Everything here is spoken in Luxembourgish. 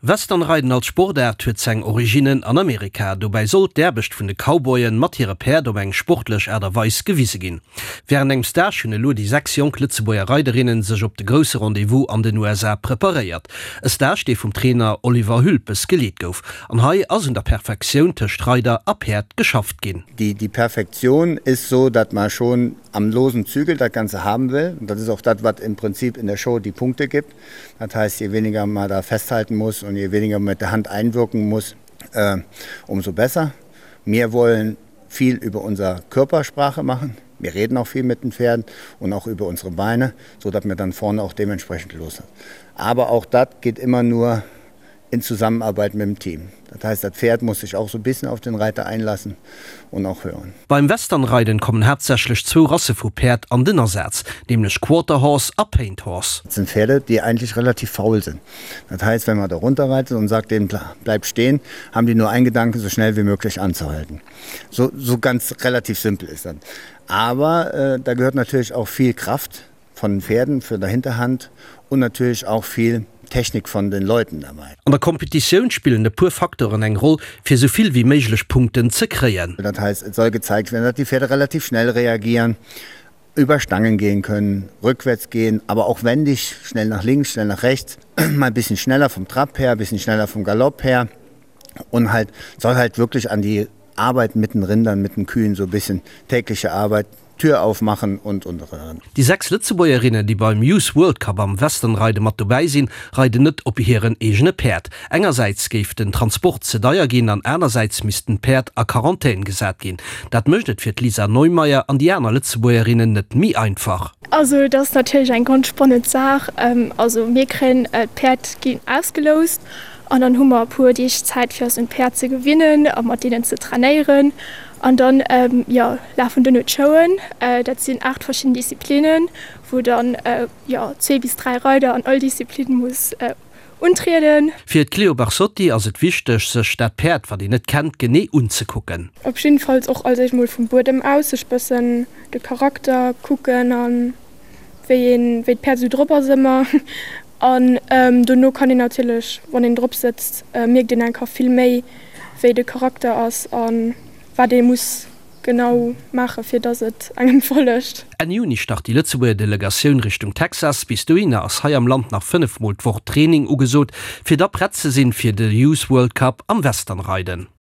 Westernreiden als Sportaart huet seng Originnen an Amerika. Dobäi soll d'Aarbecht vun de Cowboyen mat hire Päerd op eng sportlech Aart a Weis gewise ginn. Wärend engem Stage hunn elo déi 6 jonk Lëtzebuerger Reiderinnen sech op de grousse Rendez-vous an den USA preparéiert. E Stage, dee vum Trainer Oliver Hülpes geleet gouf. An hei ass un der Perfektioun tëscht Reider a Päerd geschafft ginn. Die die Perfektion ist so, dat man schon am losen Zügel dat Ganze haben will. Und das ist auch dat, wat im Prinzip in der Show die Punkte gibt. Das heißt, je weniger man da festhalten muss und je weniger man mit der Hand einwirken muss, äh, umso besser. Wir wollen viel über unser Körpersprache machen. Wir reden auch viel mit den Pferden und auch über unsere Beine, so dass wir dann vorne auch dementsprechend los sind. Aber auch das geht immer nur in Zusammenarbeit mit dem Team. Das heißt, das Pferd muss sich auch so ein bisschen auf den Reiter einlassen und auch hören. Beim Westernreiden kommen haaptsächlech zwou Rasse vu Päerd an den Asaz, nämlech Quarter Horse a Paint Horse. Das sind Pferde, die eigentlich relativ faul sind. Das heißt, wenn man da runterreitet und sagt denen bleib stehen, haben die nur einen Gedanken, so schnell wie möglich anzuhalten. So, so ganz relativ simpel ist das. Aber äh, da gehört natürlich auch viel Kraft von den Pferden für der Hinterhand und natürlich auch viel Technik von den Leuten dabei. An der Kompetitioun spillen e puer Facteuren eng Roll, fir sou vill wéi méiglech Punkten ze kréien. Das heißt, es soll gezeigt werden, dass die Pferde relativ schnell reagieren, über Stangen gehen können, rückwärts gehen, aber auch wendig, schnell nach links, schnell nach rechts, mal ein bisschen schneller vom Trab her, ein bisschen schneller vom Galopp her und halt soll halt wirklich an die Arbeit mit den Rindern, mit den Kühen so ein bisschen tägliche Arbeit Tür aufmachen und und. Déi 6 Lëtzebuergerinnen, déi beim Youth World Cup am Westernreide mat dobäi sinn, reiden net op hiren eegene Päerd. Engersäits géif den Transport ze deier ginn an anersäits missten d'Päerd a Quarantän gesat ginn. Dat mécht et fir d'Lisa Neumeyer an déi aner Lëtzebuergerinnen net méi einfach. Also et ass natierlech eng ganz spannend Saach. Also mir kréien d'Päerd ginn ausgeloust an dann hu mer e puer Deeg Zäit fir eis un d'Päerd ze gewinnen a mat deenen ze trainéieren. An dann, jo, lafen duerno d'Showen. Dat sinn 8 verschidden Disziplinnen, wou dann, jo, zwee bis dräi Reider an all Disziplin muss untrieden. Fir d'Cléo Barsotti ass et wichteg, sech dat Päerd, wat een net kennt, genee unzekucken. Op jiddefalls och als éischt mol vum Buedem aus sech bëssen de Charakter kucken an wéi een, wéi d'Päerd esou drop ass ëmmer. An dono kann een natierlech, wann een drop sëtzt, mierkt een enker vill méi, wéi de Charakter ass a wat ee muss genau maachen, fir dass et engem follegt. Enn Juni start déi Lëtzebuerger Delegatioun Richtung Texas. Bis dohinner ass hei am Land nach 5 mol d'Woch Training ugesot, fir da prett ze sinn fir de Youth World Cup am Westernreiden.